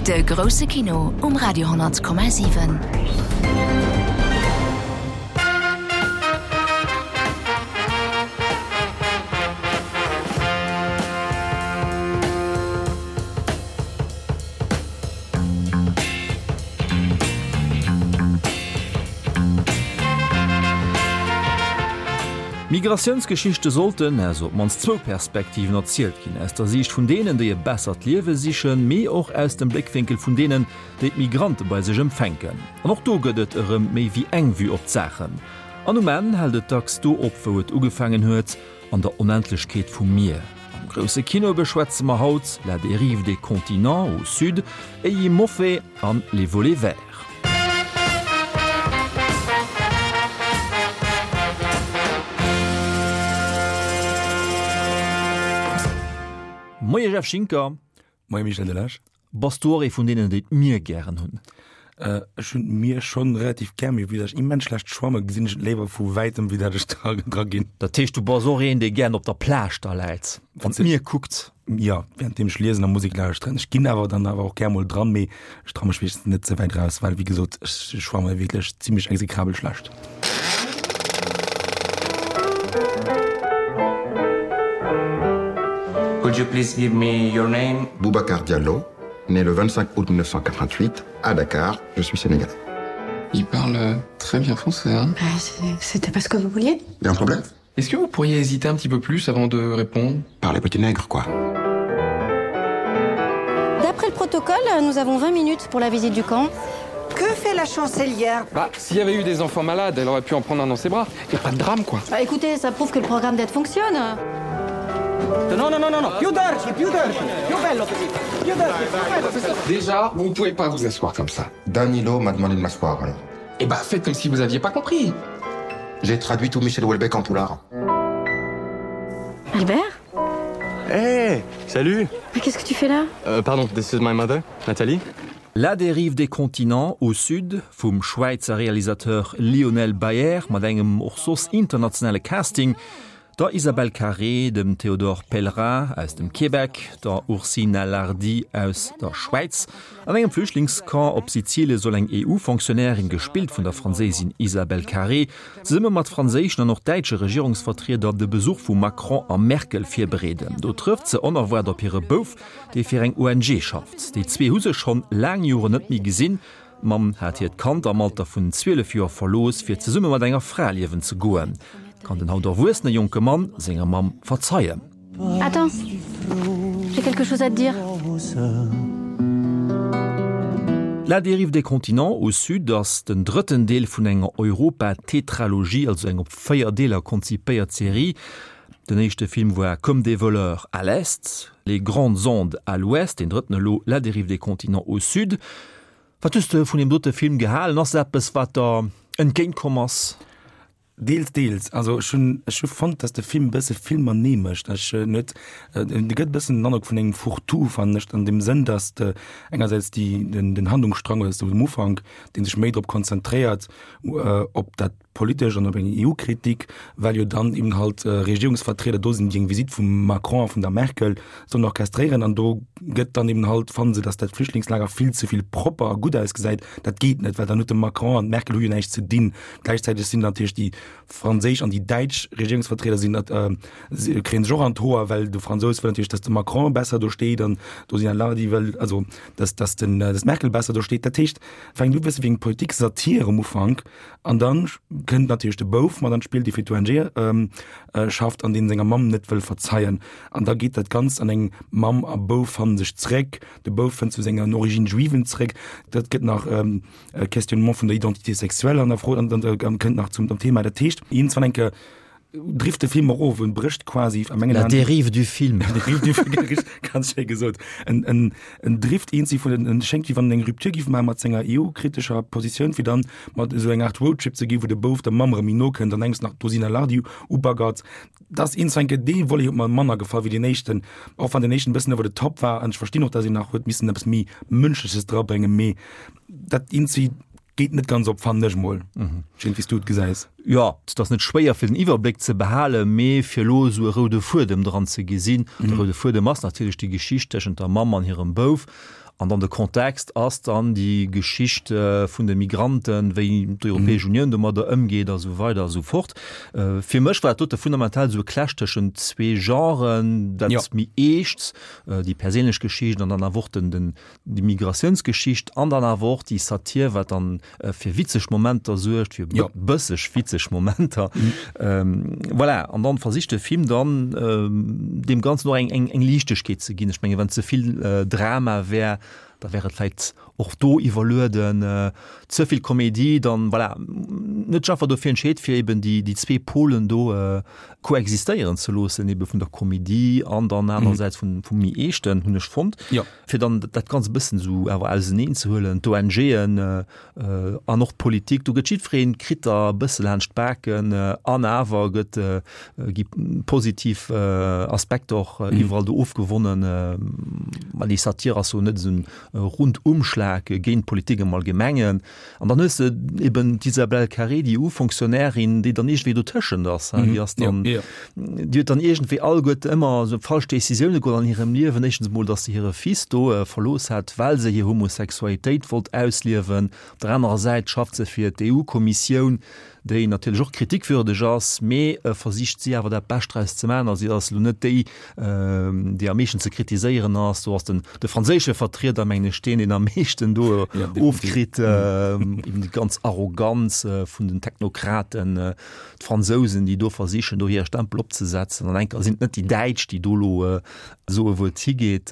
De grousse Kino um Radio 10,7. Migratiounsgeschichte sollten aus op d'mannst zwou Perspektiven erzielt ginn, aus der Siicht vun deenen, déi e bessert Liewe sichen, mee och aus dem Bléckwénkel vun deenen, déi d'Migrante bei sech empfänken. An och do gëtt et erëm méi wéi eng Vue op d'Saachen. An um Enn hält et dacks do op, wou et ugefaangen huet, an der Onendlechkeet vum Mier. Am grousse Kino beschwätze mer haut La dérive des continents au sud, Eyimofe an Les volets verts. Moie Jeff Schinker. Moie Michel Delage. Bass du och ee vun deenen, déi d'Mier gären hunn? Ech hunn d'Mier schonn relativ gär, mee vue dat ech immens schlecht schwamme gesinn ech et léiwer vu wäitem wéi dat ech dra ginn. Dat heescht du bass och een, dee gären op der Plage da läit an d'Mier kuckt? Jo, wärenddeem ech liesen a Musek lauschteren. Ech ginn awer dann awer och gär mol dran, mee ech traue mech meeschtens net ze wäit raus, well wéi gesot ech schwamme wierklech zimmlech exekrabel schlecht. Could you please give me your name? Boubacar Diallo, né le 25 août 1988 à Dakar, je suis sénégalais. Il parle euh, très bien français hein. C'était pas ce que vous vouliez? Il y a un problème? Est-ce que vous pourriez hésiter un petit peu plus avant de répondre? Par les petits nègres quoi. D'après le protocole, nous avons 20 minutes pour la visite du camp. Que fait la chancelière Bah, s'il y avait eu des enfants malades, elle aurait pu en prendre un dans ses bras. Et pas de drame quoi. Bah, écoutez, ça prouve que le programme d'aide fonctionne. Non, non, non, non, non. Più dirty, più dirty. Più bello così. Più dirty, più bello così. Déjà, vous ne pouvez pas vous asseoir comme ça. Danilo m'a demandé de m'asseoir alors. Eh bah, faites comme si vous aviez pas compris. J'ai traduit tout Michel Houellebecq en poulard. Albert Hey, salut Mais qu'est-ce que tu fais là euh, Pardon, this is my mother, Nathalie. La dérive des continents au sud vum Schwäizer Realisateur Lionel Bayer mat engem och soss internationale Casting, der Isabelle Carré, dem Théodore Pellerin aus dem Québec, der Ursina Lardi aus der Schwäiz. An engem Flüchtlingscamp op Sizilie soll eng EU-Fonctionnairin, gespillt vun der Franséisin Isabelle Carré, zesumme mat franséischen an och däitsche Regierungsvertrieder de Besuch vu Macron a Merkel virbereeden. Do trëfft se onerwaart op hire Bouf, dee fir eng ONG schafft. Déi zwee hu sech schonn laang Joren net méi gesinn. D'Mamm hat hiert Kand am Alter vun 12 Joer verlooss, fir zesumme mat enger Fra liewen ze goen. Kann den haut erwuessene jonke Mann senger Mamm verzeien? Attends, j'ai quelque chose à te dire. La dérive des continents au sud ass den drëtten Deel vun enger Europa-Tetralogie, also eng op 4 Deeler konzipéiert Serie. Den éischte Film war Comme des voleurs à l'est, Les grandes ondes à l'ouest, deen drëtten elo La dérive des continents au sud. Wat hues de vun deem dote Film gehalen? Ass et eppes, wat der entgéint komm ass? Deels, deels. Also ech hunn, ech hu fonnt, datt de Film e bësse vill matenee mécht. Ech en huet, en gëtt e bëssen den Androck vun engem Fourre-tout, fannen ech, an deem Sënn, datt de engersäits déi, den, den Handlungsstrang oder sou um Ufank, dee sech méi drop konzentréiert, op dat politesch an op eng EU-Kritik, well jo dann eben halt Regierungsvertrieder do sinn, déi eng Visitt vum Macron a vun der Merkel sollen orchestréieren. An do gëtt dann eben halt, fannen se, datt dat Flüchtlingslager vill ze vill propper a gutt ausgesäit. Dat geet net, well dann huet de Macron an d'Merkel hu jo näischt ze dinn. Gläichzäiteg sinn natierlech déi franséisch an déi däitsch Regierungsvertrieder sinn dat, kréie sech och an d'Hoer, well de Fransous wëll natierlech, datt de Macron besser do steet an d'Ursina Lardi wëll, also datt, datt den, datt d'Merkel besser do steet. Dat heescht, fänkt u bësse wéi eng Politik-Satire um Ufank An dann kënnt natierlech de Bouf mat an d'Spill, dee fir d'ONG schafft an deen senger Mamm net wëll verzeien. An da geet dat Ganzt an eng Mamm a Bouf fannen sech zréck, de Bouf fënnt zu senger Origine juiven zréck. Dat gëtt nach e Questionnement vun der Identité sexuelle an der Fro an kënnt nach zum Thema. Dat heescht, iergendwann eng Kéier drift de Film och of en brécht quasi a mengen La dérive du film. La dérive du film, ganz schéi gesot. En, en, en drift eenzi vun en schéngt wéi wann en eng Rupture giff maache mat senger EU-kritescher Positioun, fir dann mat esou eng Art Roadtrip ze gi wou de Bouf der Mamm erëm méi no kënnt an engs nach d'Rosina Lardi ubaggert. Dat ass eens enke dee Volet huet mer manner gefall wéi deen éischten, och wann deen éischten e bëssen over the top war an ech verstinn och, datt een nach huet missen eppes méi Mënschleches drabréngen, mee dat eenzi Geet net ganz op, fannen ech mol. Ech weess net, wéi s du et gesäis. Jo, et ass net schwéier fir den Iwwerbléck ze behalen, mee fir elo esou e roude Fuedem dran ze gesinn. De roude Fuedem ass natierlech déi Geschicht tëschent der Mamm an hirem Bouf. An dann de Kontext ass dann déi Geschicht vun de Migranten, wéi d'Europäesch Unioun domadder ëmgeet a sou weider a sou fort. Fir mech war dat dote fundamental esou e Clash tëschent zwee Genren, dat méi Eescht, déi perséinlech Geschicht an dann awer och den, den, déi Migratiounsgeschicht an dann awer och déi Satir, wat dann fir witzeg Momenter suergt, fir ja. bësseg witzeg Momenter. Mhm. Ähm, voilà. An dann versicht de Film dann ähm, dem Ganzen noch eng, eng, eng Liichtegkeet ze ginn. Ech menge wann zevill äh, Drama wär, da wär et vläit och do iwwerlueden äh, ze vill Komedie, dann voilà, net einfach dofir entscheet fir eben déi, déi zwee Polen do äh, koexistéieren ze loossen, eben vun der Komedie an dann anerersäits vun, vum méi eeschten hunn ech fonnt. Ja. Fir dann dat Ganzt e bëssen esou awer auseneen ze huelen, d'ONGen an och d'Politik, do gëtt jiddwereen, kritt der e bësse laanscht d'Baken an awer gëtt, gi positiv Aspekter och iwwerall do ofgewonnen. Mä déi Satire ass jo net esou en Rundumschlag géint d'Politik am Allgemengen. An dann hues de eben d'Isabelle Carré, déi EU-Fonctionnairin, déi dann iergendwéi dotëschent ass. Déi ass dann, déi huet dann iergendwéi alleguerte ëmmer esou falsch Decisioune geholl an hirem Liewen. Éischtens emol, datt se hire Fils do verlooss hat, well se hir Homosexualitéit wollt ausliewen. Op der anerer Säit schafft se fir d'EU-Kommissioun, déi natierlech och kritikwürdeg ass, mee versicht si awer dat Bescht draus ze maachen. A si ass elo net déi, déi am meeschten ze kritiséieren ass. Do ass den de franséische Vertrieder, mengen ech, deen, deen am meeschten do ofkritt, eben déi ganz Arroganz vun den Technokraten, d'Fransousen, déi do versichen, do hire Stempel opzesetzen. An enker sinn et net déi Däitsch, déi do elo soe wou et higeet.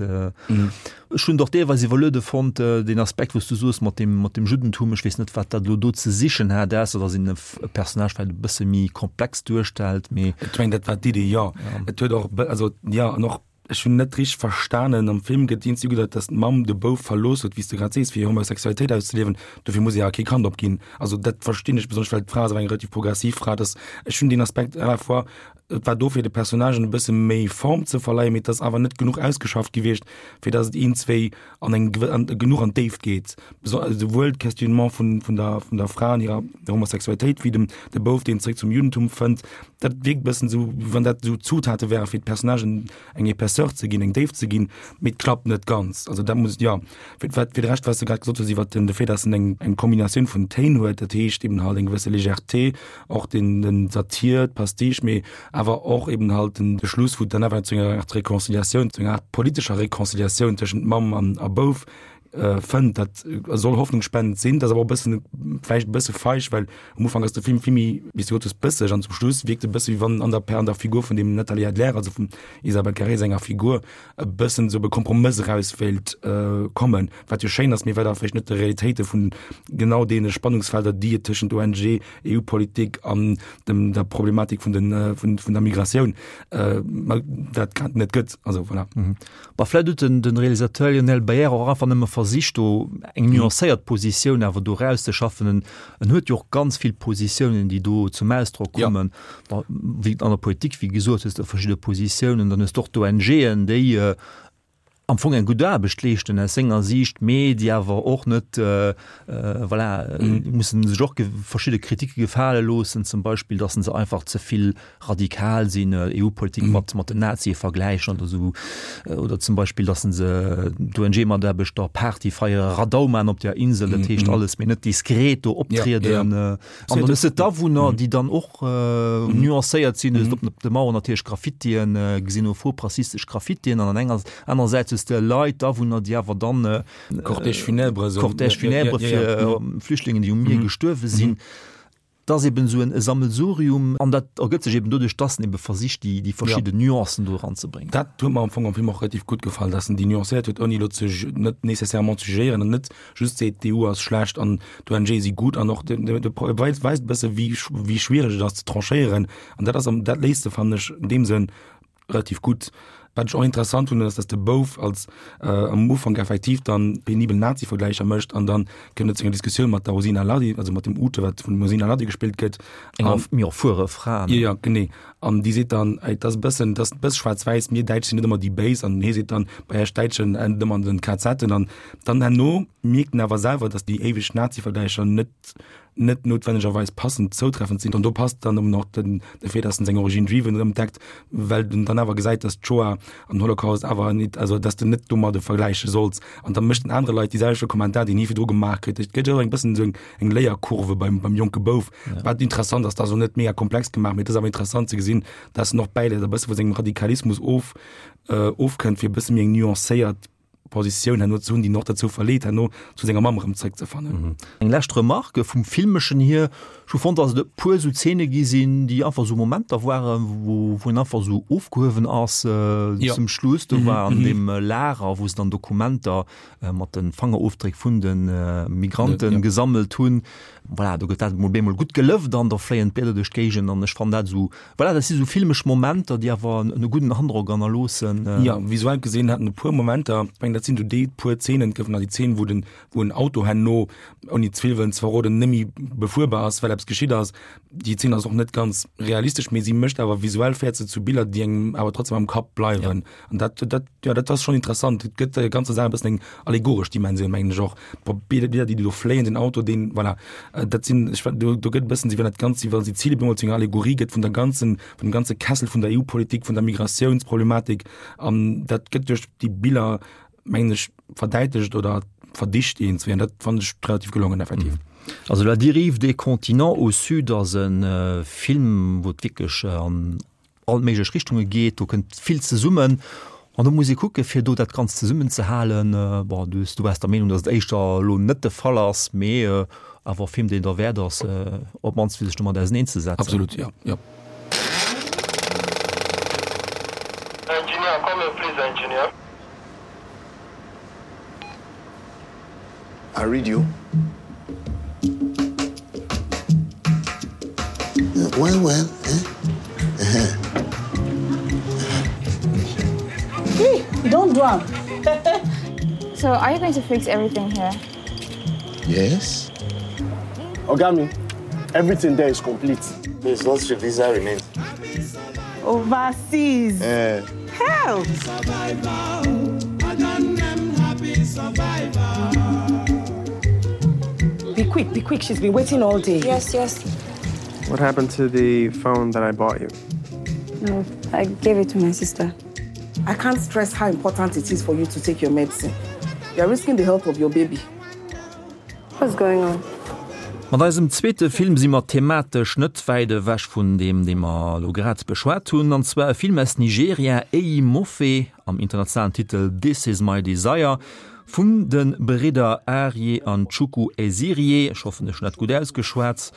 Ech hunn et och deelweis iwwerluede fonnt, deen Aspekt, wou s du soos mat deem, mat dem Juddentum. Ech weess net, wat dat elo do ze sichen hat, ausser datt een e Personnage vläicht e bësse méi komplex duerstellt, mee. Ech mengen, dat war d'Idee, jo. Et huet och, also jo, an och, ech hunn net richteg verstanen, am Film gëtt iergendwéi ugedeit, datt d'Mamm de Bouf verlooss huet, wéi s de grad sees, fir hir Homosexualitéit auszeliewen. Dofir muss ee awer kee Kand opginn. Also dat verstinn ech, besonnesch well d'Fra ass awer eng relativ progressiv Fra, dass, ech hunn deen Aspekt à la fois Et war do fir de Personnagen e bësse méi Form ze verleihen, mee et ass awer net genuch ausgeschafft gewiescht, fir dass et iergendzwéi an eng an genuch an d'Déift geet. Souwuel d'Questionnement vun vun der vun der Fra an hirer Homosexualitéit wéi dem de Bouf, deen zréck zum Juddentum fënnt. Dat wierkt e bëssen esou, wéi wann dat esou Zutate wäre fir d'Personnagen eng Épaisseur ze ginn, eng Déift ze ginn, mee et klappt net ganz. Also dat muss, jo. Fir wat fir de Rescht, wat s de grad gesot hues iwwert den de Fait, dass en eng eng Kombinatioun vun Téin huet, dat heescht eben halt eng gewësse Légèreté, och den den Satir, d'Pastiche, mee awer och eben halt den de Schluss, wou et dann awer zu enger Art Réconciliatioun, zu enger Art politescher Réconciliatioun tëschent Mamm an a Bouf fënnt. Dat soll hoffnungsspendend sinn, dat ass awer och e bëssen vläicht e bësse feig, well am Ufank ass de Film vill méi, wéi s de gesot hues, bësseg an zum Schluss wierkt e bësse wéi wann an der an der Figur vun dem Nathalie Adler, also vum Isabelle Carré senger Figur, e bëssen esou op e Kompromëss eraus wéilt kommen, wat jo schéin ass, mee wat awer vläicht net de Realitéite vun genau deene Spannungsfelder, déi et tëschent ONG, EU-Politik an dem der Problematik vun den vun vun der Migratioun dat grad net gëtt. Also voilà. Bah, vläicht huet den den Realisateur Lionel Baier och einfach nëmme versicht, do eng nuancéiert Positioun awer do erauszeschaffen. En en huet jo och ganz vill Positiounen, déi do zum Ausdrock kommen. Ja. Wéi an der Politik, wéi gesot, hues de verschidde Positiounen, dann hues de och d'ONGen, déi am Fong eng gutt Aarbecht leeschten aus senger Siicht, mee déi awer och net, voilà, déi mussen sech och verschidde Kritike gefale loossen, zum Beispill, datt se einfach ze vill radikal sinn, EU-Politik mat mat den Nazie vergläichen oder esou, oder zum Beispill, datt se d'ONG-Mataarbechter Party feiere, Radau man op der Insel, dat heescht alles, mee net diskret do optrieden. An dann hues de d'Awunner, déi dann och nuancéiert sinn, hues de op de Mauern natierlech Graffitien, xenophob, rassistesch Graffitien, an an enger anersäits hues de Leit, d'Awunner, déi awer dann Cortège funèbre, Cortège funèbre fir Flüchtlingen, déi um Mier gestuerwe sinn. Et ass eben esou e Sammelsurium an dat ergëtt sech eben doduerch, dass en ebe versicht, déi, déi verschidden Nuancen do eranzebréngen. Dat huet mer am Fong am Film och relativ gutt gefall, dass en déi nuancéiert huet, ouni elo ze, net nécessairement ze jugéieren an net just seet, d'EU ass schlecht an d'ONGe si gutt an och de, de, de weist, weist e bësse wéi, wéi schwiereg et ass ze tranchéieren an dat ass am, dat léist e, fannen ech, in deem Sënn relativ gutt. Wat ech och interessant hunn, ass, dass de Bouf als am Ufank effektiv dann penibel Nazi-Vergläicher mécht an dann kënnt et zu enger Diskussioun mat der Rosina Lardi, also mat dem Ute, wat vun dem Rosina Lardi gespillt gëtt. Enger méi erfuere Fra. Jo, jo, genee. An déi seet dann, ey, et ass e bëssen, et ass e bësse schwaarz-wäiss, mir Däitsch sinn net ëmmer déi Béis. An hie seet dann, bei iech Däitschen ennt et ëmmer an den KZen. An dann herno mierkt en awer selwer, dass déi éiweg Nazi-Vergläicher net net noutwennegerweis passend zoutreffend sinn. An do passt dann eben och den de Fait, dass en seng Origine juive erëm entdeckt, well en dann awer gesäit, dass d'Shoah. An den Holocaust awer nit, also dass de net domadde vergläiche solls. An da mécht den anere Leit déi selwechte Kommentar, deen hie virdru gemaach kritt. Et gëtt jo och eng bëssen esou eng, eng Léierkurve beim, beim jonke Bouf, wat interessant ass. Dat ass och net mega komplex gemaach, mee et ass awer interessant ze gesinn, dass en och bäiläit a bësse vu sengem Radikalismus of, ofkënnt, fir e bësse méi eng nuancéiert Positioun herno ze hunn, déi en och derzou verleet, herno zu senger Mamm erëm zréckzefannen. Eng lescht Remarque vum Filmeschen hier, Ech hu fonnt, dass et e puer esou Zeene gi sinn, déi einfach esou Momenter waren, wou wou een einfach esou ofgehuewen ass zum Schluss. Do war an deem Lager, wou se dann Dokumenter mat de Fangerofdréck vun de Migrante gesammelt hunn. Voilà, do gëtt dat emol bemol gutt gelëft an da fléien d'Blieder duerch d'Géigend an ech fannen dat esou, voilà, dat si sou filmesch Momenter, déi awer en gudden Androck hannerloossen. Jo, visuell gesinn hat en e puer Momenter, ech mengen dat sinn esou déi puer Zeenen, et goufen nach déi Zeen, wou den, wou en Auto herno, ouni ze vill wëllen ze verroden, net méi befuerbar ass, well eppes geschitt ass. Déi Zeen ass och net ganz realistesch, mee si mécht awer visuell, féiert se zu Biller, déi engem awer trotzdem am Kapp bleiwen. An dat, dat, jo, dat ass schonn interessant. Et gëtt der ganzer Saach e bëssen eng allegoresch Dimensioun, mengen ech och. D'Bilder, déi do fléien, den Auto, deen, voilà, dat sinn, ech, do, do gëtt e bëssen, wéi wann dat Ganzt, wéi wa Sizilien bemol zu enger Allegorie gëtt vun der ganzen, vun dem ganze Kessel vun der EU-Politik, vun der Migratiounsproblematik. An dat gëtt duerch déi Biller, mengen ech, verdäitlecht oder verdicht iergendswéi. An dat fannen ech relativ gelongen, effektiv. Also La dérive des continents au sud ass e Film, wou et wierklech an all méiglech Richtunge geet, do kënnt vill zesummen an do muss ee kucke fir do dat Ganzt zesummen ze halen. Bon, du du waars der Meenung, datt et éischter elo net de Fall ass, mee awer e Film, deen derwäert ass, op d'mannst fir sech domat auseneen ze setzen. Absolut, jo, jo. Engineer, come here please engineer. I read you. Well, well, eh? Uh -huh. Hey, don't do am. So are you going to fix everything here? Yes. Ogami, everything there is complete. There's lots of visa remains. Overseas. Eh. Help! Be quick, be quick. She's been waiting all day. Yes, yes. What happened to the phone that I bought you? No, I gave it to my sister. I can't stress how important it is for you to take your medicine. You're risking the health of your baby. What's going on? Mat eisem zweete Film si mer thematesch net wäit ewech vun deem, dee mer elo grad beschwat hunn, an zwar e Film aus Nigeria, Eyi Mofe, am internationalen Titel This Is My Desire, vun de Bridder Arie an Chukwu Ezirie, ech hoffen, ech hunn dat gutt ausgeschwat.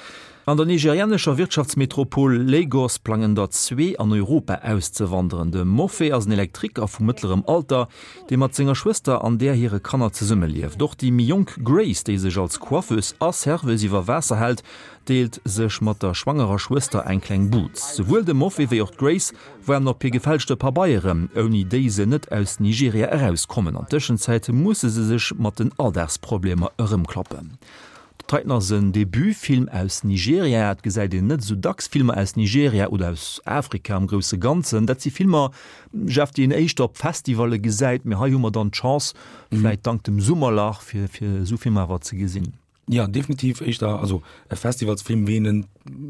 An der nigerianescher Wirtschaftsmetropol Lagos plangen der zwee an Europa auszewanderen. De Mofe ass en Elektriker vu mëttlerem Alter, dee mat senger Schwëster an där hire Kanner zesummelieft. Och déi méi jonk Grace, déi sech als Coiffeuse a Serveuse iwwer Waasser hält, deelt sech mat der schwangerer Schwëster eng kleng Buz. Souwuel de Mofe wéi och d'Grace waarden op hir gefälschte Pabeieren, ouni déi se net aus Nigeria erauskommen. An Tëschenzäit musse se sech mat den Alldagsproblemer erëmklappen. Titan ass en Debutfilm aus Nigeria. Et gesäit een net esou dacks Filmer aus Nigeria oder aus Afrika am grousse Ganzen. Dat si Filmer, Jeff, déi een éischter op Festivalle gesäit, mee hei hu mer dann d'Chance, vläit dank dem Summerlach, fir fir esou Filmer awer ze gesinn. Jo, definitiv éischter, also e Festivalsfilm, wéi een en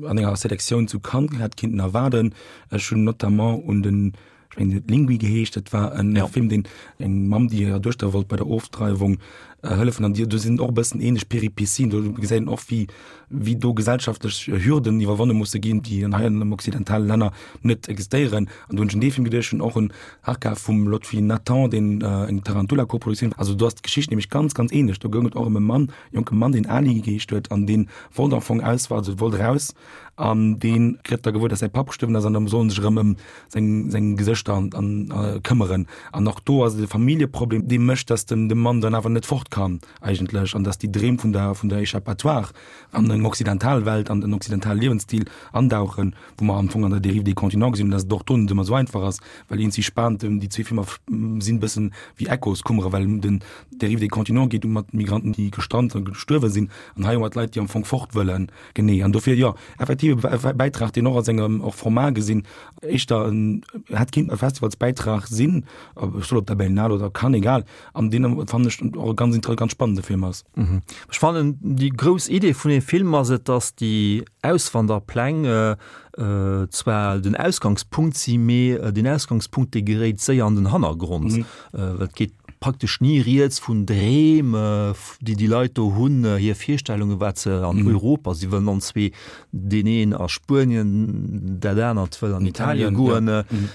an enger Selektioun zu Cannes hätt kinnten erwaarden. Ech hunn notamment un den Ech mengen, huet Lingui geheescht. Dat war en ja. Film, deen eng Mamm, déi hirer Duechter wollt bei der Ofdreiwung äh, hëllefen. An do sinn och e bëssen ähnlech Peripetien. Do gesäit een och, wéi, wéi do gesellschaftlech Hürden iwwerwonne musse ginn, déi an hei an den occidentale Länner net existéieren. An do hunn ech un dee Film geduecht, hunn och un Harka vum Lotfi Nathan, deen äh, eng Tarantula-Koproduktioun. Also do ass d'Geschicht nämlech ganz, ganz ähnlech. Do goung et och ëm e Mann, jonke Mann, deen Ali geheescht huet an dee wollt am Fong aus, also wollt raus an dee kritt da gewuer, dass säi Papp gestuerwen ass an da soll en sech erëm ëm seng, seng Gesëschter an, an äh, këmmeren. An och do ass et e Familljeproblem, dee mécht, dass den, de Mann dann awer net fort kann eigentlech an dass déi Dreem vun der, vun der Échappatoire an eng occidental Welt, an den occidentale Liewensstil andauchen, wou mer am Fong an der Dérive des continents gesinn hunn, dass et och do net ëmmer esou einfach ass, well eens si spannend, déi zwee Filmer sinn e bëssen wéi Echoskummere, well den Dérive des continents geet mat Migranten, déi gestrant a gestuerwe sinn, an hei hu mer d'Leit, déi am Fong fort wëllen. Genee, an dofir, jo, effektiv e Bäitrag, deen och a sengem och Format gesinn éischter en hätt kinnt e Festivalsbäitrag sinn, ech soll op der Berlinale oder Cannes, egal, an deen fannen ech och e ganz interessante. e ganz spannende Film ass. Ech fannen, déi grouss Idee vun deem Film ass et, datt déi Auswanderpläng zwar den Ausgangspunkt si, mee deen Ausgangspunkt, dee geréit séier an den Hannergrond, well et geet praktesch ni rieds vun Dreem, déi déi Leit do hunn, hir Virstellungen, wat se an Europa, si wëllen an zwee, deen een a Spuenien, dat anert wëll an Italien goen.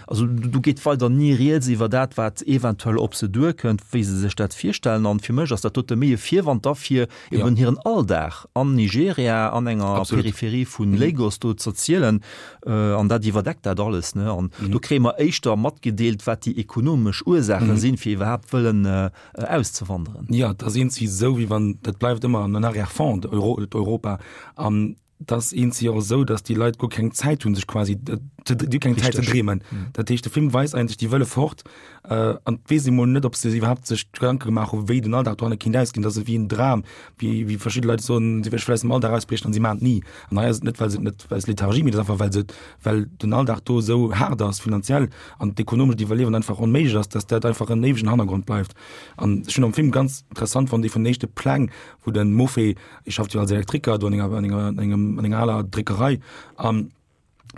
Also do geet weider ni rieds iwwer dat, wat eventuell op se duerkënnt, wéi se sech dat virstellen. An fir mech ass dat dote méi e Virwand da fir eben hiren Alldag an Nigeria, an enger Peripherie vu Lagos do z'erzielen. An dat iwwerdeckt dat alles. An do kréie mer éischter matgedeelt, wat déi ekonomesch Ursaache sinn, fir iwwerhaapt wëllen auszewanderen. Jo, et ass eenzi esou, wéi wann, dat bleift ëmmer en Arrière-fond, Europa. An et ass eenzi och esou, datt déi Leit guer keng Zäit hunn, sech quasi, déi hu keng Zäit ze dreemen. Dat heescht, de Film weist eigentlech, déi wëlle fort an et weess ee mol net, ob se iwwerhaapt sech Gedanke gemaach hunn, wéi den Alldag dohanne kéint ausginn. Dat ass ewéi en Dram, wéi, wéi verschidde Leit soen, si wëlle vläicht aus dem Alldag ausbriechen an si maachen et ni. An hei ass et net, well se et net, aus Lethargie, mee et ass einfach, well se et, well den Alldag do esou haart ass finanziell an d'ekonomescht Iwwerliewen einfach onméiglech ass, dass dat einfach en éiwegen Hannergrond bleift. An ech hunn am Film ganz interessant fonnt, ee vun den éischte Pläng, wou de Mofe, hie schafft jo als Elektriker do an enger, an enger, an engem, an enger aler Dréckerei an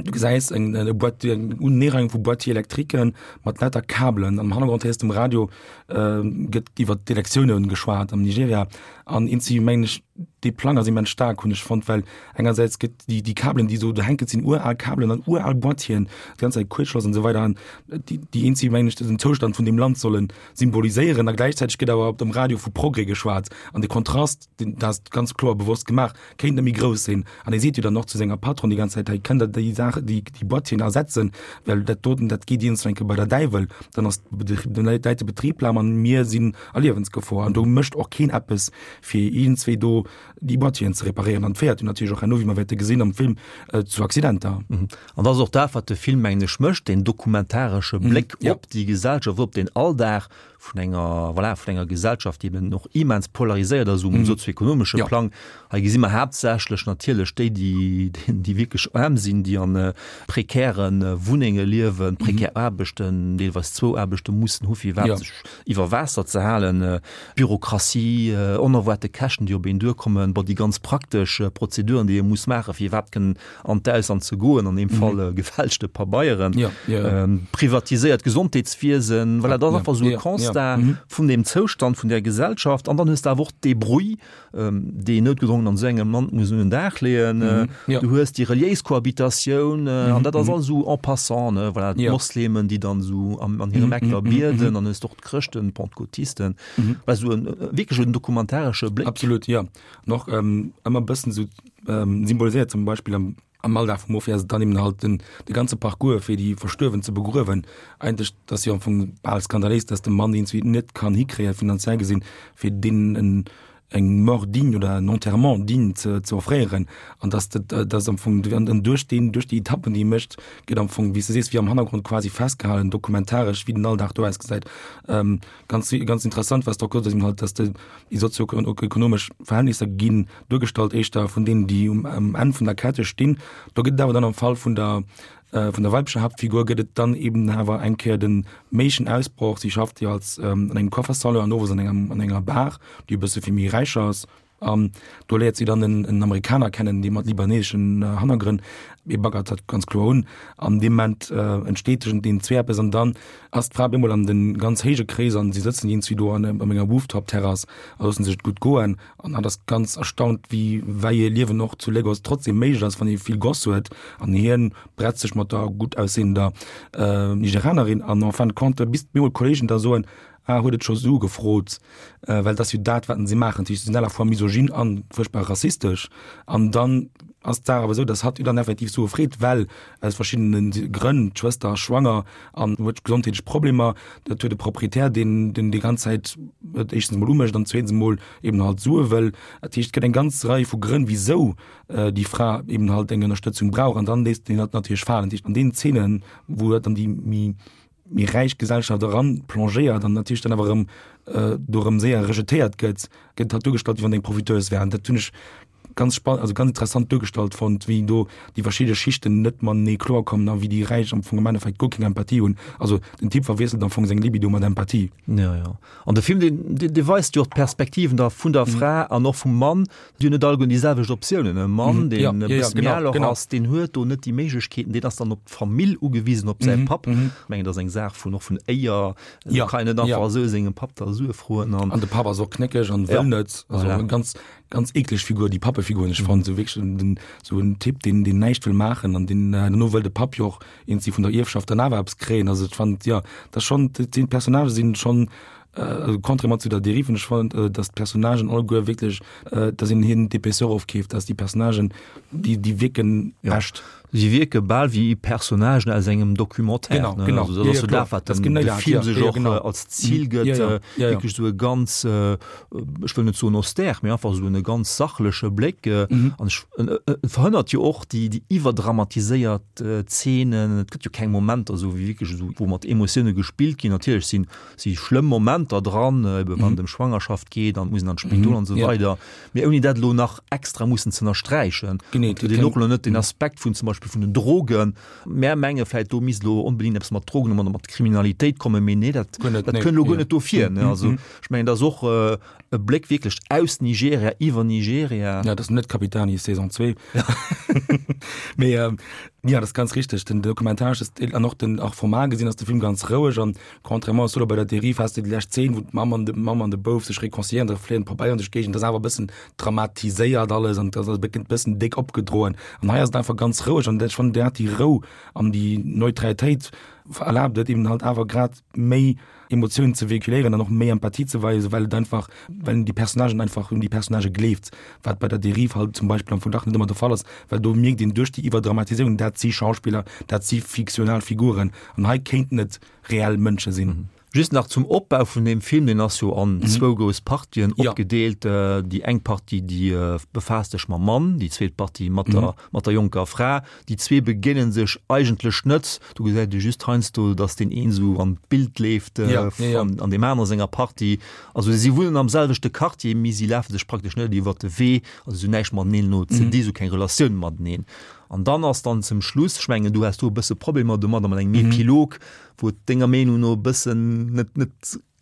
du gesäis eng, eng Boîte, eng Uneereiung vu Boîtier électriquen mat lauter Kabelen. Am Hannergrond héiers de um Radio, gëtt iwwer d'Elektiounen geschwat am Nigeria an eenzi mengen ech, dee Plang ass immens staark, hunn ech fonnt, well engersäits gëtt déi, déi Kabelen, déi esou do hänken, sinn ural Kabelen an ural Boîtieren, déi ganz Zäit Kuertschloss an esou weider an déi, déi eenzi mengen ech den Zoustand vun deem Land solle symboliséieren a gläichzäiteg gëtt awer op dem Radio vu Progrès geschwat an de Kontrast, deen, dat ass ganz kloer bewosst gemaach, kéint net méi grouss sinn. An e seet jo dann och zu senger Patronne déi ganz Zäit, hei kënnt der déi Saach, déi, déi Boîtieren ersetzen, well dat doten, dat geet iergendwann eng Kéier bei der Däiwel, dann ass de, läit de Betrib lam an mir sinn a Liewensgefor an do mécht och keen eppes, fir iergendzwéi do déi Boîtieren ze reparéieren. An féiert jo natierlech och herno, wéi mer wäerte gesinn am Film, zu Accidenter. An dat ass och dat, wat de Film, mengen ech, mécht, deen dokumentaresche Bléck op déi Gesellschaft, op deen Alldag vun enger, voilà, vun enger Gesellschaft, déi eben och immens polariséiert ass um sozioekonomesche Plang. Hei gesi mer haaptsächlech natierlech déi, déi, déi wierklech aarm sinn, déi an prekäre Wunnenge liewen, prekär Aarbechten, deelweis zwou Aarbechte mussen hu fir iwwerhaapt sech iwwer Waasser ze halen, Bürokratie, onerwaarte Käschten, déi op een duerkommen, bon, déi ganz praktesch Prozeduren, déi ee muss maachen, fir iwwerhaapt kënnen an d'Ausland ze goen, an deem Fall gefälschte Pabeieren, privatiséiert Gesondheetswiesen, voilà, dat ass einfach esou e Constat vun deem Zoustand vun där Gesellschaft. An dann hues de awer och d'Débrouille, déi een noutgedrongen an esou engem Land muss un den Dag leeën. Du hues déi reliéis Kohabitatioun, an dat ass alles esou en passant, ne, voilà, d'Moslemen, déi dann esou an hirem Eck da bieden, dann hues de och d'Chrëschten, d'Pentecôtisten, voilà, esou en wierklech en dokumentaresche Bléck. Absolut, jo. An och ëmmer e bëssen esou symboliséiert, zum Beispill am am Alldag vum Mofi ass et dann eben halt den de ganze Parcours fir déi Verstuerwen ze begruewen. Eigentlech dat ass jo am Fong bal skandaléis, datt de Mann iergendwéi net kann hikréien, finanziell gesinn, fir deenen en eng Mort digne oder en Enterrement digne ze ze offréieren. An datt dat datt am Fong an an duerch deen duerch déi Etappen déi e mécht, gëtt am Fong, wéi s de sees, wéi am Hannergrond quasi festgehalen, dokumentaresch, wéi den Alldag do ausgesäit. Ganz ganz interessant, wat s de och gesot hues, eben halt, datt de déi sozioekonomesch Verhältnisser ginn duergestallt éischter vun deenen, déi um Enn vun der Kette stinn. Do gëtt et awer dann am Fall vun der vun der weiblecher Haaptfigur gëtt et dann eben awer eng Kéier den méiglechen Ausbroch. Si schafft jo als an engem Coiffersalon an owes an engem an enger Bar, déi e bësse fir méi Räicher ass. An do léiert si dann en en Amerikaner kennen, dee mat libaneseschen Hannergrënn, hie baggert dat ganz kloer un. An deem Moment entsteet tëschent deenen zwee eppes an dann ass d'Fra op eemol an de ganz héije Kreeser an si sëtzen iergendwéi do an op enger Rooftop-Terrass a loosse sech et gutt goen. An hatt ass ganz erstaunt, wéi wei ee Liewen och zu Lagos trotzdem méiglech ass, wann ee vill Goss huet. An hien bretzt sech mat der gutt aussehender Nigerianerin an en fin de compte, bis op eemol d'Kollegen da soen, Ah, huet et scho Sue gefrot, well et ass jo dat, wat se maachen. Dat heescht, se sinn à la fois misogyn a fuerchtbar rassistesch. An dann ass d'Saach awer esou, datt hatt jo dann effektiv Sue freet, well aus verschiddene Grënn, d'Schwëster ass schwanger an huet gesondheetlech Problemer, dat huet e Proprietär, deen deen déi ganz Zäit et éischtens emol umécht an zweetens emol eben halt Sue wëll. Dat heescht, et gëtt eng ganz Rei vu Grënn, wisou déi Fra eben halt eng Ënnerstëtzung brauch an dann léisst een hatt natierlech falen. Dat heescht, an deenen Zeenen, wou dann déi méi méi räich Gesellschaft eran plongéiert an natierlech dann awer erëm do erëm séier rejetéiert gëtt, gëtt hatt duergestallt, wéi wann eng Profiteuse wär. An dat hunn ech. ganz spann also ganz interessant duergestallt fonnt, wéi do déi verschidde Schichten net matenee kloer kommen a wéi déi Räich am Fong am Endeffekt guer keng Empathie hunn. Also den Typ verwiesselt am Fong seng Libido mat Empathie. Ja, ja. An de Film, deen, deen, dee weist jo och d'Perspektiven da vun der Fra an och vum Mann. Déi hunn net alleguerten déi selwecht Optiounen. E Mann, deen e bësse méi al och ass, deen huet do net déi Méiglechkeeten, deen ass dann op d'Famill ugewisen, op säi Papp. Ech mengen, dat ass eng Saach vun och vun Éier. Do kann een net einfach esou sengem Papp da Sue froen. An de Papp ass och knéckeg an wëll net. Also eng ganz, ganz eekleg Figur, déi Pappefigur, hunn ech fonnt. Esou wierklech den, esou en Typ, deen, deen näischt wëll maachen an deen herno wëll de Papp jo och iergendwéi vun der Ierfschaft dann awer eppes kréien. Also ech fand, jo, dat ass schonn, dat sinn, d'Personnagë sinn schonn, also contrairement zu der Dérive, hunn ech fonnt, datt d'Personnagen alleguer wierklech, datt een hinnen d'Épaisseur ofkeeft, datt déi Personnagen, déi, déi wierken echt. Si wierke bal wéi Personnagen aus engem Documentaire. Genau, genau. Also, dat ass jo dat, wat den, de Film sech och als Zil gëtt, wierklech esou e ganz, ech wëll net soen austère, mee einfach esou e ganz sachleche Bléck. An ech, en verhënnert jo och déi, déi iwwerdramatiséiert Zeenen. Et gëtt jo keng Momenter esou wéi wierklech esou, wou mat Emotioune gespillt ginn. Natierlech sinn, si schlëmm Momenter dran, ebe wann et ëm Schwangerschaft geet an et muss een an d'Spidol an esou weider. Mee ouni dat elo nach extra mussen ze ënnersträichen. Genee. Et huet een och elo net den Aspekt vun zum Beispill vun den Drogen. Mär menge vläicht, do misst elo onbedéngt eppes mat Drogen oder mat Kriminalitéit kommen, mee nee, dat, Guer net, dat nee. kënnt elo guer net do vir, ne. Also ech mengen, dat ass och e Bléck wierklech aus Nigeria, iwwer Nigeria. Ja, dat ass net Capitani Saison 2. Mee jo, dat ass ganz richteg. Den Documentaresche Stil an och den och formal gesinn ass de Film ganz roueg an Contrairement zu bei der Dérive has de déi lescht Zeen, wou d'Mamm an de Mamm an de Bouf sech réconciliéieren, da fléien d'Pabeieren duerch d'Géigend, dat ass awer e bëssen dramatiséiert alles an dat ass e bëssen déck opgedroen. An hei ass et einfach ganz roueg an ech fannen, dat déi Rou an déi Neutralitéit erlaabt et eben halt awer grad méi Emotiounen ze véhiculéieren an och méi Empathie ze weisen, well et einfach, well een déi Personnagen einfach un déi Personnagë gleeft, wat bei der Dérive halt zum Beispill am Fong dach net ëmmer de Fall ass, well do mierkt een duerch déi Iwwerdramatiséierung, dat si Schauspiller, dat si fiktional Figuren an hei kéinten et reell Mënsche sinn. Just nach zum Opbau vun deem Film, deen ass jo an zwou grouss Partien opgedeelt. Déi eng Partie, déi befaasst sech mam Mann, déi zweet Partie mat der, mat der jonker Fra. Déi zwee begéine sech eigentlech net. Do gesäit ee just heiansdo, datt deen een esou an d'Bild leeft an deem anere senger Partie. Also si wunnen am selwechte Quartier, mee si lafe sech praktesch net iwwert de Wee, also si hunn näischt mateneen elo ze di, si hu keng Relatioun mateneen. An dann ass dann zum Schluss, ech mengen, du has do e bësse Problemer domadder mat engem Epilog, wou et denger Meenung no e bëssen net, net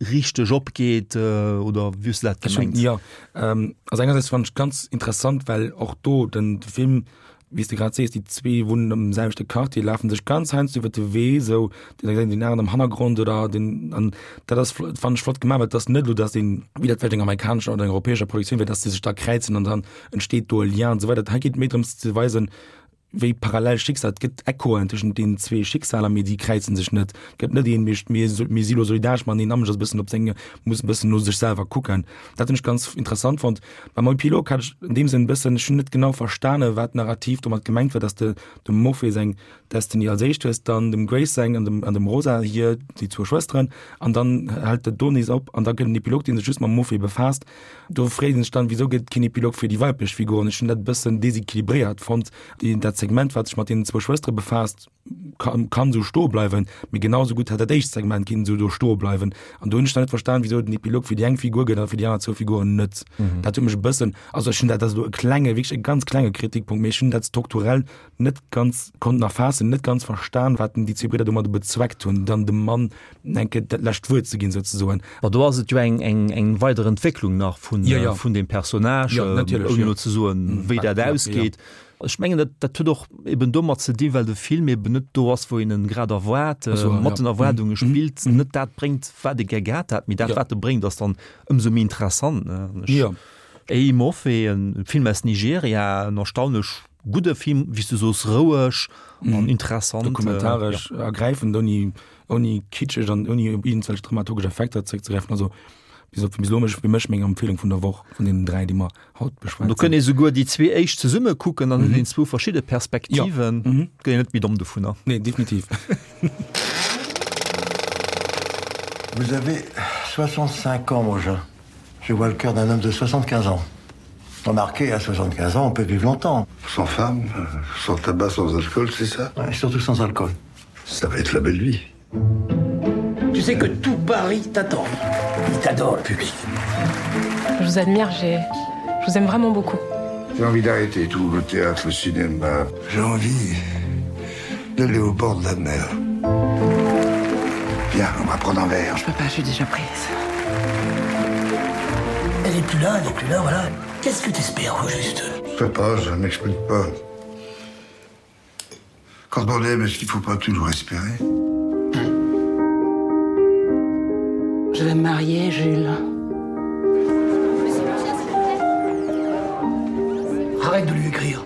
richteg opgeet, oder wéi hues du dat gemengt? Jo, also engersäits fannen ech ganz interessant, well och do den Film, wéi s de grad sees, déi zwee wunnen am selwechte Quartier, lafen sech ganz heiansdo iwwer de Wee, esou deen eng deen aneren am Hannergrond oder den, an dat ass fannen ech flott gemaach, well et ass net elo, datt een, wéi dat vläicht enger amerikanescher oder enger europäescher Produktioun wär, datt se sech da kräizen an dann entsteet do e Lien an esou weider. Hei geet et méi drëms ze weisen, wéi parallel Schicksal, et gëtt Echoen tëschent deenen zwee Schicksaler, mee déi kräizen sech net. Et gëtt net een, mir, mir, mir si lo solidaresch mateneen, a mech ass e bëssen op seng, muss e bëssen no sech selwer kucken. Dat hunn ech ganz interessant fonnt. Beim Epilog hat ech an deem Sënn e bëssen, ech hunn net genau verstane wat narrativ domat gemengt war, datt de dem Mofe seng Destiny als éischt hues, dann dem Grace seng an dem, an dem Rosa hir, déi zwou Schwësteren, an dann hält et do nees op an da gëtt en Epilog, dee sech just mam Mofe befaasst. Do freet een sech dann, Wisou gëtt et keen Epilog fir déi weiblech Figuren? Ech hunn dat e bëssen desequilibréiert fonnt. Déi, dat Segment, wat sech mat deenen zwou Schwëstere befaasst, kann, kann esou stoe bleiwen, mee genau esou gutt hätt dat éischt Segment kinnen esou do stoe bleiwen. An do hunn ech dann net verstan, wisou et en Epilog fir déi eng Figur gëtt a fir déi aner zwou Figuren net. Dat huet mech e bëssen, also ech hunn dat, dat ass elo e klenge, wierklech e ganz klenge Kritikpunkt, mee ech hunn dat strukturell net ganz konnten erfaassen, net ganz verstan, wat déi zwee Bridder domadder bezweckt hunn, dann dem Mann eng Kéier dat lescht Wuert ze ginn, souzesoen. Ma do ass et jo eng, eng, eng weider Entwécklung nach vun, ja, ja. vun deem Personnage, ja, natierlech, ouni ja. elo ze soen, wéi dat Ja, ja. ausgeet. Ech mengen, dat, dat huet och eben domat ze dinn, well de Film eben net do ass, wou een en grad erwaart, Ach so, mat ja. den Erwaardunge spillt, net dat bréngt, wat ee gär gehat hat, mee dat, Ja. wat e bréngt, ass dann ëmsou méi interessant, ne. An ech, Ja. Eyimofe, en Film aus Nigeria, en erstaunlech Gudde Film, wéi s du soos, roueg an interessant. Dokumentaresch ergräifend, ouni, ouni kitscheg an ouni op iergendwelch dramaturgesch Effekter zeréckzegräifen. Also bis op bis elo mech fir mech meng Empfehlung vun der Woch vun deenen 3, déi mer haut beschwat Do kënnt ee souguer déi zwee éischt zesumme kucken, dann huet een zwou verschidde Perspektiven. Ja. Gëtt een net méi domm dovunner. Nee, definitiv. Vous avez 65 ans, mon jean. Je vois le cœur d'un homme de 75 ans. Remarquez, à 75 ans, on peut vivre longtemps. Sans femme, sans tabac, sans alcool, c'est ça ouais, Surtout sans alcool. Ça va être la belle vie. Tu sais que tout Paris t'attend. Il t'adore, le public. Je vous admire, j'ai... Je vous aime vraiment beaucoup. J'ai envie d'arrêter tout le théâtre, le cinéma. J'ai envie d'aller au bord de la mer. Viens, on va prendre un verre. Je peux pas, je suis déjà prise. Elle est plus là, elle est plus là, voilà. Qu'est-ce que tu espères au juste Je peux pas, je m'explique pas. Quand on aime, est-ce qu'il faut pas toujours espérer Je vais me marier, Jules. Arrête de lui écrire.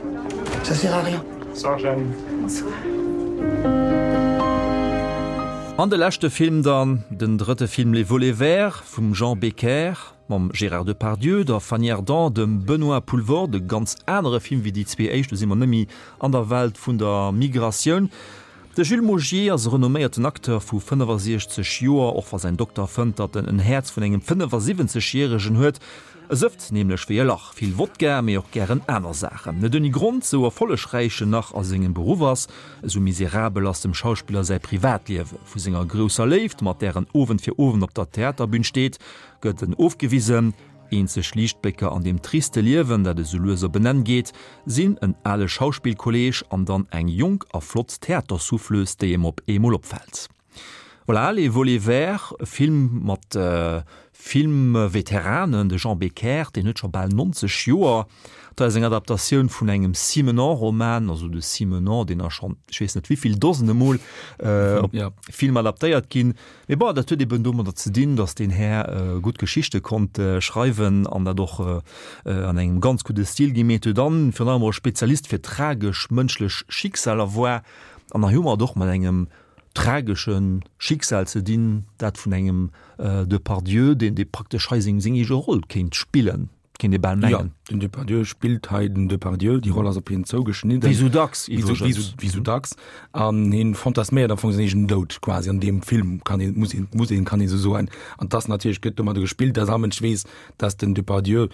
Ça sert à rien. Bonsoir, Jeanne. Bonsoir. An de leschte Film dann, den drëtte Film Les Volets verts vum Jean Becker mam Gérard Depardieu, der Fanny Ardant, dem Benoît Poelvoorde, e ganz anere Film wéi déi zwee éischt, do si mer net méi an der Welt vun der Migratioun. De Jules Maugier ass e renomméierten Acteur vu 65 Joer, och wa säin Dokter fënnt, datt en en Häerz vun engem 75 Järegen huet. E sëfft nämlech wéi e Lach, vill Wodka, mee och gären aner Saachen. Net ouni Grond, sou erfollegräich en nach a sengem Beruff ass, esou miserabel ass dem Schauspiller säi Privatliewe. Vu senger grousser Léift, mat där en Owend fir Owend op der Theaterbün steet, gëtt en ofgewisen. Eenzeg Liichtblécker an deem triste Liewen, dat esou lues op en Enn geet, sinn en ale Schauspillkolleeg an dann eng jonk a flott Theatersouffleuse, déi em op eemol opfält. Voilà, Les Volets Verts, e Film mat Filmveteranen, de Jean Becker, deen huet scho bal 90 Joer. Dat ass eng Adaptatioun vun engem Simenon-Roman, also de Simenon, deen ass schonn, ech weess net wéivill Dosene Mol op Film adaptéiert ginn. Mee bon, dat huet eben domadder ze dinn, datt deen Här gutt Geschichte konnt schreiwen an dat och an engem ganz gudde Stil gi. Mee et huet dann virun allem och e Spezialist fir tragesch mënschlech Schicksaler war. An hei hu mer et och mat engem tragesche Schicksal ze dinn, dat vun engem Depardieu, deen dee praktesch hei seng seng eege Roll kéint spillen, kéint ee bal mengen. Jo, den Depardieu spillt hei den Depardieu, déi Roll ass op hien zougeschnidden. Wéi sou dacks iwwregens. Wéi sou dacks. An hien fantasméiert am Fong säin eegenen Doud quasi an deem Film, kann een, muss een, muss een, kann ee sou soen. An 't ass natierlech, gëtt domadder gespillt, dass all Mënsch weess, dass den Depardieu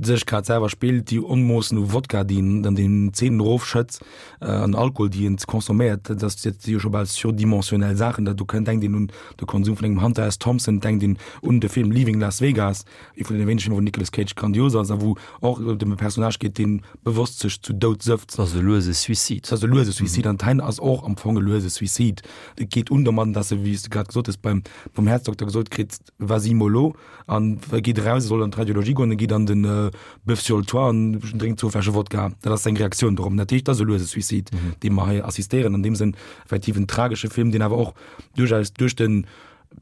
sech grad selwer spillt, déi Onmoossen u Wodka, déi en an den Zeenen erofschëtzt, an Alkohol, déi en consomméiert, dat ass dat si jo scho bal surdimensionnel Saachen. Dat do kënnt, denkt een un de Konsum vun engem Hunter S. Thompson, denkt een un de Film Leaving Las Vegas, ee vun deene wéinege Filmer, wou Nicolas Cage grandios ass a wou och et ëm e Personnage geet, dee bewosst sech zu Doud sëfft. Dat ass e luese Suicide. Dat ass e luese Suicide an d'Heine ass och am Fong e luese Suicide. Et geet un domadden, dass e, wéi s de grad gesot hues, beim, vum Häerzdokter gesot kritt, Vas-y mollo an e geet eraus, e soll an d'Radiologie goen, e geet an den Bœuf sur le toit an drénkt zwou Fläsche Wodka. Dat ass seng Reaktioun dorop. Dat heescht, dat ass e luese Suicide, deem mer hei assistéieren. An deem Sënn effektiv en tragesche Film, deen awer och duerchaus duerch de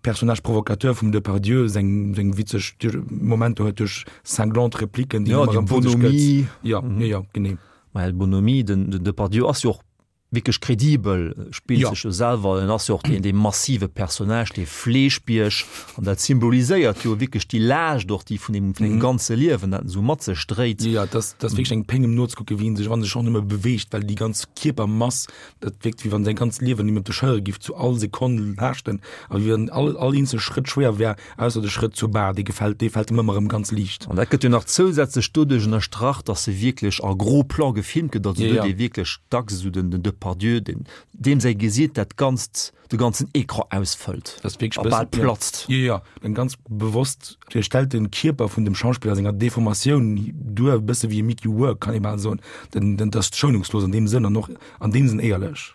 Personnage provocateur vum Depardieu seng seng witzeg Momenter huet, duerch cinglante Repliken, déi en ëmmer erëm vu sech gëtt. Jo, jo, jo, genee. Well Bonhomie, den Depardieu ass jo och wierklech kredibel, spillt sech jo selwer, en ass jo och deen dee massive Personnage, dee Fleeschbierg, an dat symboliséiert jo wierklech déi Laascht och, déi vun deem vun deem ganze Liewen, dat en esou mat sech dréit. Jo, et ass, et ass wierklech eng Péng em nozekucken, wéi en sech, wann en sech och nëmme beweegt, well déi ganz Kierpermass, dat wierkt wéi wann säi ganzt Liewen him op de Schëllere giff zu all Sekonn laaschten a wéi wann all all eenzel Schrëtt schwéier wär. Ausser de Schrëtt zur Bar, dee gefält, dee fält em ëmmer erëm ganz liicht. An dat gëtt jo nach zousätzlech doduerch ënnerstrach, dass se wierklech a gros plan gefilmt gëtt, also do huet ee wierklech dacks esou den Depardieu, deen, deem säi Gesiit dat ganzt, de ganzen Ecran ausfëllt a bal platzt. Jo, jo, en ganz bewosst stellt de Kierper vun dem Schauspiller a senger Deformatioun duer, e bësse wéi e Mickey Rourke, kann ee bal soen. Den, den, dat ass schounungslos an deem Sënn an och an deem Sënn éierlech.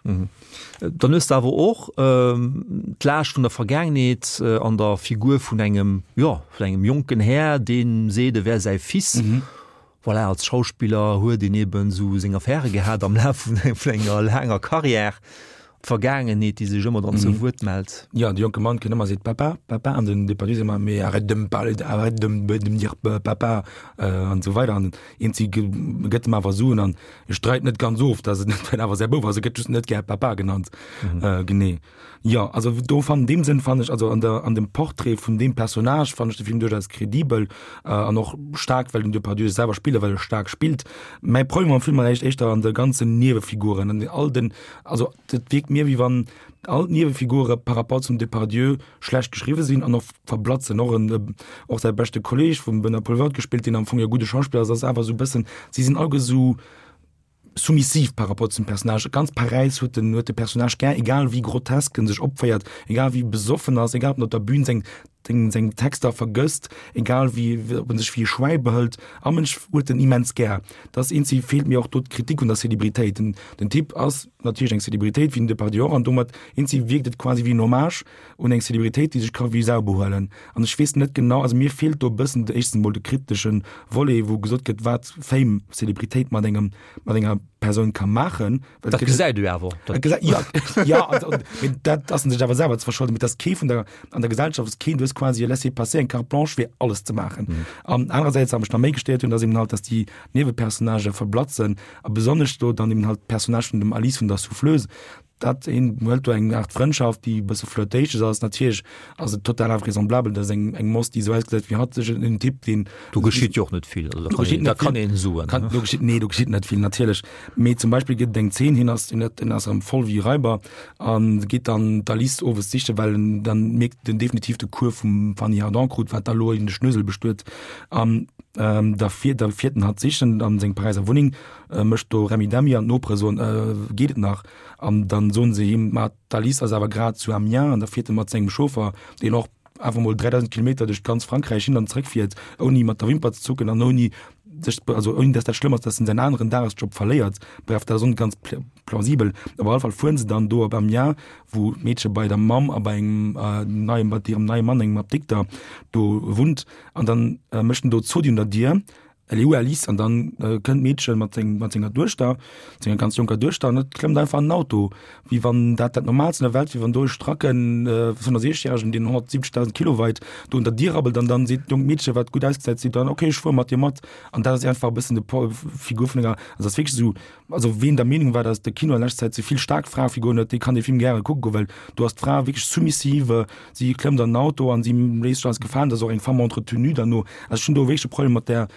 Dann hues de awer och d'Laascht vun der Vergaangenheet an der Figur vun engem, jo, vun engem jonken Här, dee seet, e wär säi Fils. Voilà, als Schauspiller huet een eben esou seng Affäre gehat am Laf vun enger laanger Carrière. D'Vergaangenheet, déi sech ëmmer dann zu Wuert mellt. Jo, de jonke Mann kënnt ëmmer a seet Papa, Papa, an den Depardieu seet ëmmer, Mais arrête de me parler, arrête de me dire papa, an esou weider. An eenzi gëtt em awer Suen an E streit net ganz of, dass et net awer säi Bouf ass, e gëtt just net gär Papa genannt. Mhm. Äh, genee. Ja, also do fan dem Sënn fand ech also an der an dem Portrait vun dem Personnage fand ech de Film durchaus kredibel äh, an och stark, well den Depardieu selwer spille well e stark spillt. Mäi Problem am Film war echt éischter an de ganzen Niewefiguren an all den also dat wierkt mir wéi wann all d'Niewefigure par rapport zum Depardieu schlecht geschriwwe sinn an och verblatzen. Och en och säi beschte Kolleg vum Benoît Poelvoorde gespillt, deen am Fong e gudde Schauspiller ass, ass awer esou e bëssen, si sinn alleguer esou soumissiv par rapport zum Personnage. Ganz Paräis huet den huet de Personnage gär, egal wéi grotesk en sech opféiert, egal wéi besoffen ass, egal ob en op der Bühn seng. seng, seng Texter vergësst, egal wéi, ob en sech wéi e Schwäi behëlt, a Mënsch huet en immens gär. Dat ass eenzi feelt mir och do d'Kritik un der Celebritéit. Den, den Typ ass natierlech eng Celebritéit, wéi den Depardieu och, an domat eenzi wierkt et quasi wéi en Hommage un eng Celebritéit, déi sech ka wéi Sau behuelen. An ech weess net genau, also mir feelt do e bëssen de éischtens emol de kritesche Volet, wou gesot gëtt, wat Fame, Celebritéit mat engem, mat enger Persoun ka maachen. Well Dat gesäit du awer. Dat gesäit, ja, ja, also, mee dat ass en sech awer selwer ze verscholden, mee dass kee vun der, an der Gesellschaft ass keen, du hues quasi e Laissez-passer, eng Carte blanche fir alles ze maachen. Mhm. An anerersäits, wat mech nach méi gestéiert hunn, ass eben halt, dass déi Niewepersonnagë verblatzen a besonnesch do dann eben halt d'Personnage vun dem Alice vun der Souffleuse, dat een huet do eng Art Frëndschaft, déi e bësse flirtatious ass. Natierlech ass et total invraisemblabel, dass eng, eng Moss, déi esou ausgesäit wéi hatt, sech en Typ, deen. Do geschitt jo och net vill, also da kann een, da kann een soen. Kann, do geschitt, nee, do geschitt net vill, natierlech. Mee zum Beispill gëtt et eng Zeen, hien ass, hien huet, hien ass erëm voll wéi Raiber a geet dann d'Alice owes sichen, well en dann mierkt, en definitiv de Cours vum Fanny Ardant krut, wat da lo in de Schnösel bestuet. An da fiert, da fiert en hatt sichen an seng Paräiser Wunneng, mécht do Remmidemmi an d'Nopere soen, Geet et nach? An dann soen se him, ma d'Alice ass awer grad zu Amiens an da fiert e mat sengem Chauffer, deen och awer mol 3.000 Kilometer duerch ganz Frankräich hin an zréck fiert, ouni mat der Wimper ze zucken an ouni sech, also ouni dass dat schlëmm ass, dass en säin aneren Dagesjob verléiert. Bref, dat ass och net ganz plausibel. Op alle Fall fueren se dann do op Amiens, wou d'Meedche bei der Mamm a bei engem neiem, bei hirem neie Mann, engem Apdikter, do wunnt. An dann mécht en do Zodi un der Dier Elle est où Alice? An dann kënnt d'Meedche mat seng, mat senger Duechter, senger ganz jonker Duechter, an et klëmmt einfach an den Auto, wéi wann dat dat Normaalst an der Welt wier, wann do e stracken 65 järegen, deen 170.000 Kilo weit, do un der Dier rabbelt an dann seet d'jonkt Meedche, wat gutt ausgesäit, seet dann, okay, ech fuere mat dir mat. An dat ass einfach e bëssen de Po, Figur vun enger, also ass wierklech esou, also ween der Meenung war, datt de Kino an leschter Zäit ze vill staark Fraefiguren huet, dee kann dee Film gäre kucke goen, well do ass d'Fra wierklech soumissive, si klëmmt an den Auto an si léisst sech alles gefalen, dat ass och eng Femme entretenue derno. Also ech hunn do wierklech e Problem mat där,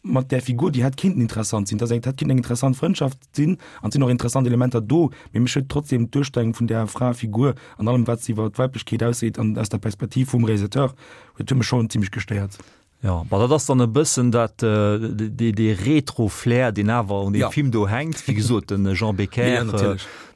mat där Figur, déi hätt kinnten interessant sinn, dat ass eng, hätt kinnten eng interessant Frëndschaft sinn an et sinn och interessant Elementer do, mee mech huet trotzdem d'Duerstellung vun där Fraefigur an allem wat se iwwer d'Weiblechkeet ausseet an aus der Perspektiv vum Realisateur huet huet mech schonn zimmlech gestéiert. Jo, bon, dat ass dann e bëssen dat, dee, dee Retro-Flair, deen awer un deem Film do hänkt. Wéi gesot, de Jean Becker,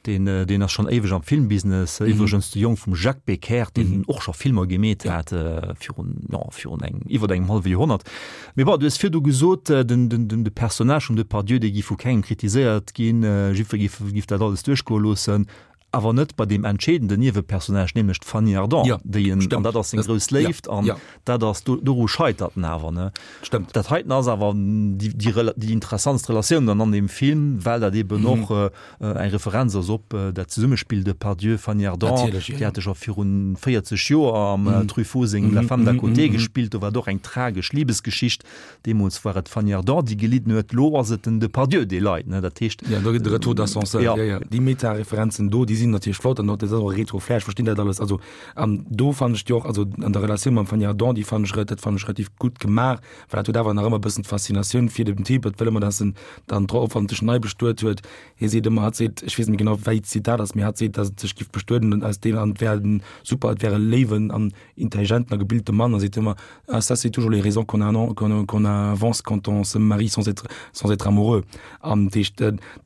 deen, deen ass schonn éiweg am Filmbusiness, iwwregens de Jong vum Jacques Becker, deen och scho Filmer gemeet hat virun, jo, virun engem, iwwer engem hallwe Joerhonnert. Mee bon, du hues virdu gesot, den, den, den, de Personnage vum Depardieu, dee géif vu kengem kritiséiert ginn, jiddweree géif, géif dat alles duerchgoe loossen. Awer net bei deem entscheedenden Niewepersonnage, nämlech d'Fanny Ardant, ja, déi en, an dat ass seng grouss Léift, an ja. dat ass, do, doru scheitert en awer, ne? Stëmmt. Dat heiten ass awer déi, déi, déi interessantst Relatioun dann an deem Film, well dat eben mhm. och äh, eng Referenz ass op äh, dat Zesummespill Depardieu, Fanny Ardant, Natierlech, ja. déi hate scho virun 40 Joer am mhm. Truffaut sengem mhm. La femme d'à mhm. côté mhm. gespillt, do war et och eng tragesch Liebesgeschicht. Deemools war et d'Fanny Ardant, déi gelidden huet, elo ass et den Depardieu, dee leit. Dat heescht. Jo, do gëtt de Retour d'ascenseur. Jo, jo. Déi Meta-Referenzen do, déi sinn natierlech flott an och dat ass och e Retro-Flair, ech verstinn dat alles. Also, an do fannen ech déi och, also an der Relatioun mam Fanny Ardant, déi fannen ech, dat fannen ech relativ gutt gemaach, well dat huet awer nach ëmmer e bëssen d'Faszinatioun fir den Typ, et wëll ëmmer, dass en dann drop hoffentlech nei bestuet huet. Hie seet ëmmer, hatt seet, ech weess net méi genau, wéi d'Zitat ass, mee hatt seet, dass et sech giff bestueden an aus deem, an et wär en super, et wär e léiwen an intelligenten a gebilte Mann a seet ëmmer, ah ça c'est toujours les raisons qu'on a qu'on qu'on avance quand on se marie sans être sans être amoureux. An dat heescht,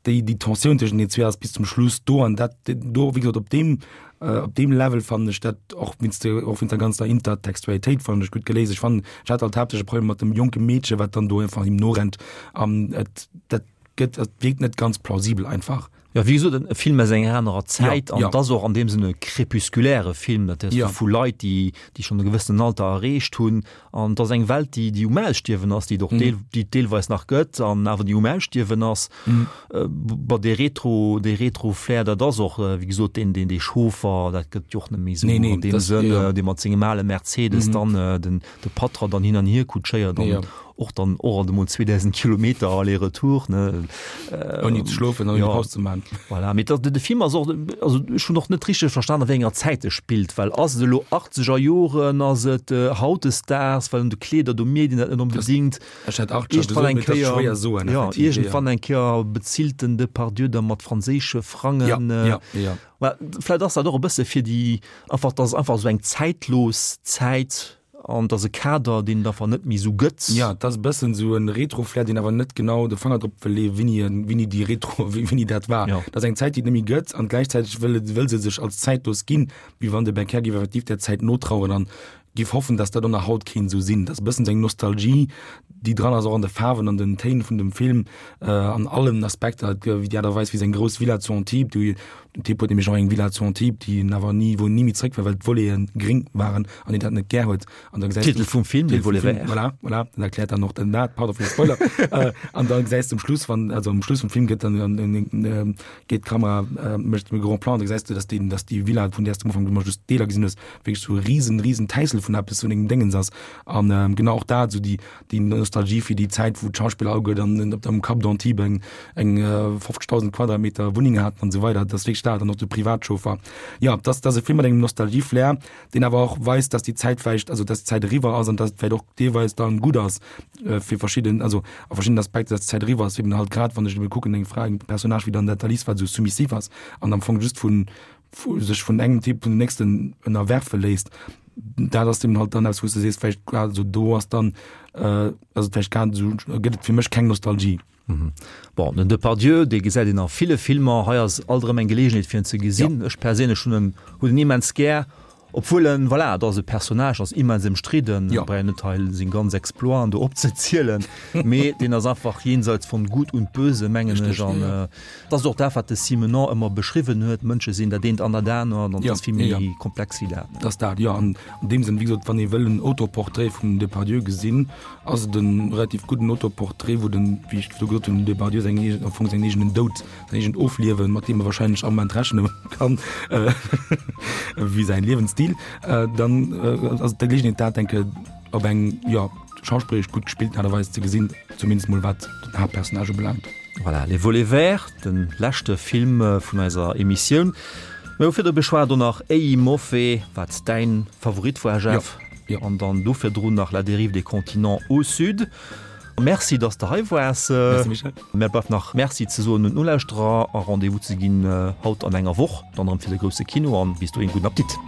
déi déi Tensioun tëschent den zwee ass bis zum Schluss do an dat do, wéi gesot, op deem op deem Level fannen ech dat och wéinst der och wéinst der ganzer Intertextualitéit fannen ech gutt geléist. Ech fannen, ech hat halt haaptsächlech e Problem mat dem jonke Meedche wat dann do einfach him norennt an et dat gëtt et wierkt net ganz plausibel einfach. Jo, wéi gesot, e Film aus enger anerer Zäit an et ass och an deem Sënn e crépusculaire Film, dat heescht vu Leit, déi, déi schonn e gewëssenen Alter erreecht hunn. An et ass eng Welt, déi, déi um Ausstierwen ass, déi et och deel, déi et deelweis nach gëtt an awer déi um Ausstierwen ass. Bon, dee Retro, dee Retro-Flair, dat ass och, wéi gesot, deen, deen, dee Chauffer, dat gëtt jo och net méi esou an deem Sënn, dee mat sengem ale Mercedes dann den, de Patra dann hin an hier kutschéiert an och dann och alt emol 2000 Kilometer aller-retour, ne. Ouni ze schlofen, ouni Paus ze maachen. Voilà, mee dat, de Film ass och, also ech hunn och net richteg verstan, a wéi enger Zäit e spillt, well ass et elo achtzeger Joren, ass et hautdesdaags, well un de Kleeder, do mierkt een dat net onbedéngt. Ech hätt achtzeger gesot, mee dat ass schwéier soen, effektiv, jo. Iergendwann eng Kéier bezilt den Depardieu da mat franséische Frangen. Ja, ja, ja. Mä vläicht ass dat och e bësse fir déi, einfach, dass et einfach esou eng zäitlos Zäit an dass e Kader, deen et einfach net méi esou gëtt. Jo, et ass e bëssen esou e Retro-Flair, deen awer net genau de Fanger drop wëll leeën, wéini en, wéini déi Retro, wéini dat war. Jo. Et ass eng Zäit, déi et net méi gëtt an gläichzäiteg wëll et, wëll se sech als zäitlos ginn, wéi wann de Becker géif effektiv där Zäit notraueren an. Giff hoffen, dass dat och nach haut kéint esou sinn. Dat ass e bëssen esou eng Nostalgie, déi dran ass, och an de Faarwen, an den Téin vun dem Film, an allen Aspekter, wéi déi Aart a Weis, wéi seng grouss Villa zu Antibes, déi, den Typ huet nämlech och eng Villa zu Antibes, déi en awer ni, wou en ni méi zréck war, well d'Voleten gréng waren an hien dat net gär huet. An da gesäis du. Titel vum Film, Les Volets verts. Voilà, voilà, dat erkläert dann och den dat, pardon fir de Spoiler. An da gesäis du um Schluss, wann, also um Schluss vum Film gëtt dann, geet d'Kamera, mécht e Grand Plan, da gesäis du, dass déi, dass déi Villa, vun där s du am Ufank ëmmer just Deeler gesinn hues, wierklech sou e riesen, riesen Täissel vun eppes, vun engem Déngens ass. An genau och dat, sou déi, déi Nostalgie fir déi Zäit, wou d'Schauspiller alleguer dann op am Cap d'Antibes eng, eng 50.000 Quadratmeter Wunneng haten an esou weider. Dat ass wierklech dat. An och de Privatchauffer. Jo, dat ass, dat ass e Film mat engem Nostalgie-Flair, deen awer och weist, dass déi Zäit vläicht, also dass d'Zäit eriwwer ass an dass et vläicht och deelweis dann gutt ass fir verschidden, also a verschiddenen Aspekter, dass d'Zäit eriwwer ass, eben halt grad wann ech eben kucken, eng Fra, eng Personnage wéi dann dat d'Alice, wat esou soumissiv ass an am Fong just vun, vu sech vun engem Typ vun dem nächsten ënnerwerfe léisst, dat ass eben halt dann eppes wou s de sees, vläicht grad esou do ass dann, ass et vläicht grad esou, gëtt et fir mech keng Nostalgie. Bon, den Depardieu, dee gesäit een a ville Filmer. Hei ass alt erëm eng Geleegenheet fir en ze gesinn. Ech perséinlech hunn en hunn en immens gär, obwuel en, voilà, et ass e Personnage, ass immens ëmstridden, ja. Brauch een net hei seng ganz Exploiten do opzezielen, mee deen ass einfach jenseits von Gut und Böse, mengen ech. An et ass och dat, wat de Simenon ëmmer beschriwwen huet, Mënsche sinn dat eent an dat anert, an et ass vill méi komplex wéi dat. Et ass dat, jo. An an deem Sënn, wéi gesot, wann ee wëll en Autoportrait vum Depardieu gesinn, ass et en relativ gudden Autoportrait, wou den, wéi ech virdru gesot hunn, den Depardieu seng eegen, am Fong säin eegenen Doud, säin eegent Ofliewen, mat deem e wahrscheinlech am Moment rechne kann, wéi säin Liewensstil, dann ass et d'Geleegenheet dat, denke op eng, jo, schauspilleresch gutt gespillten Aart a Weis ze gesinn, zumindest mol wat den Haaptpersonnage ubelaangt. Voilà, Les Volets Verts, de leschte Film vun eiser Emissioun. Mir hu virdru beschwat och nach Ei Moffe, wat däin Favorit war, Jeff. Jo. An dann do virdrun nach La dérive des continents au sud. Merci, dass de hei waars. Merci, Michel. Mär bleift nach Merci ze soen un d'Nolauschterer a Rendez-vous ze ginn haut an enger Woch, dann erëm fir de grousse Kino. An bis dohin gudden Appetit.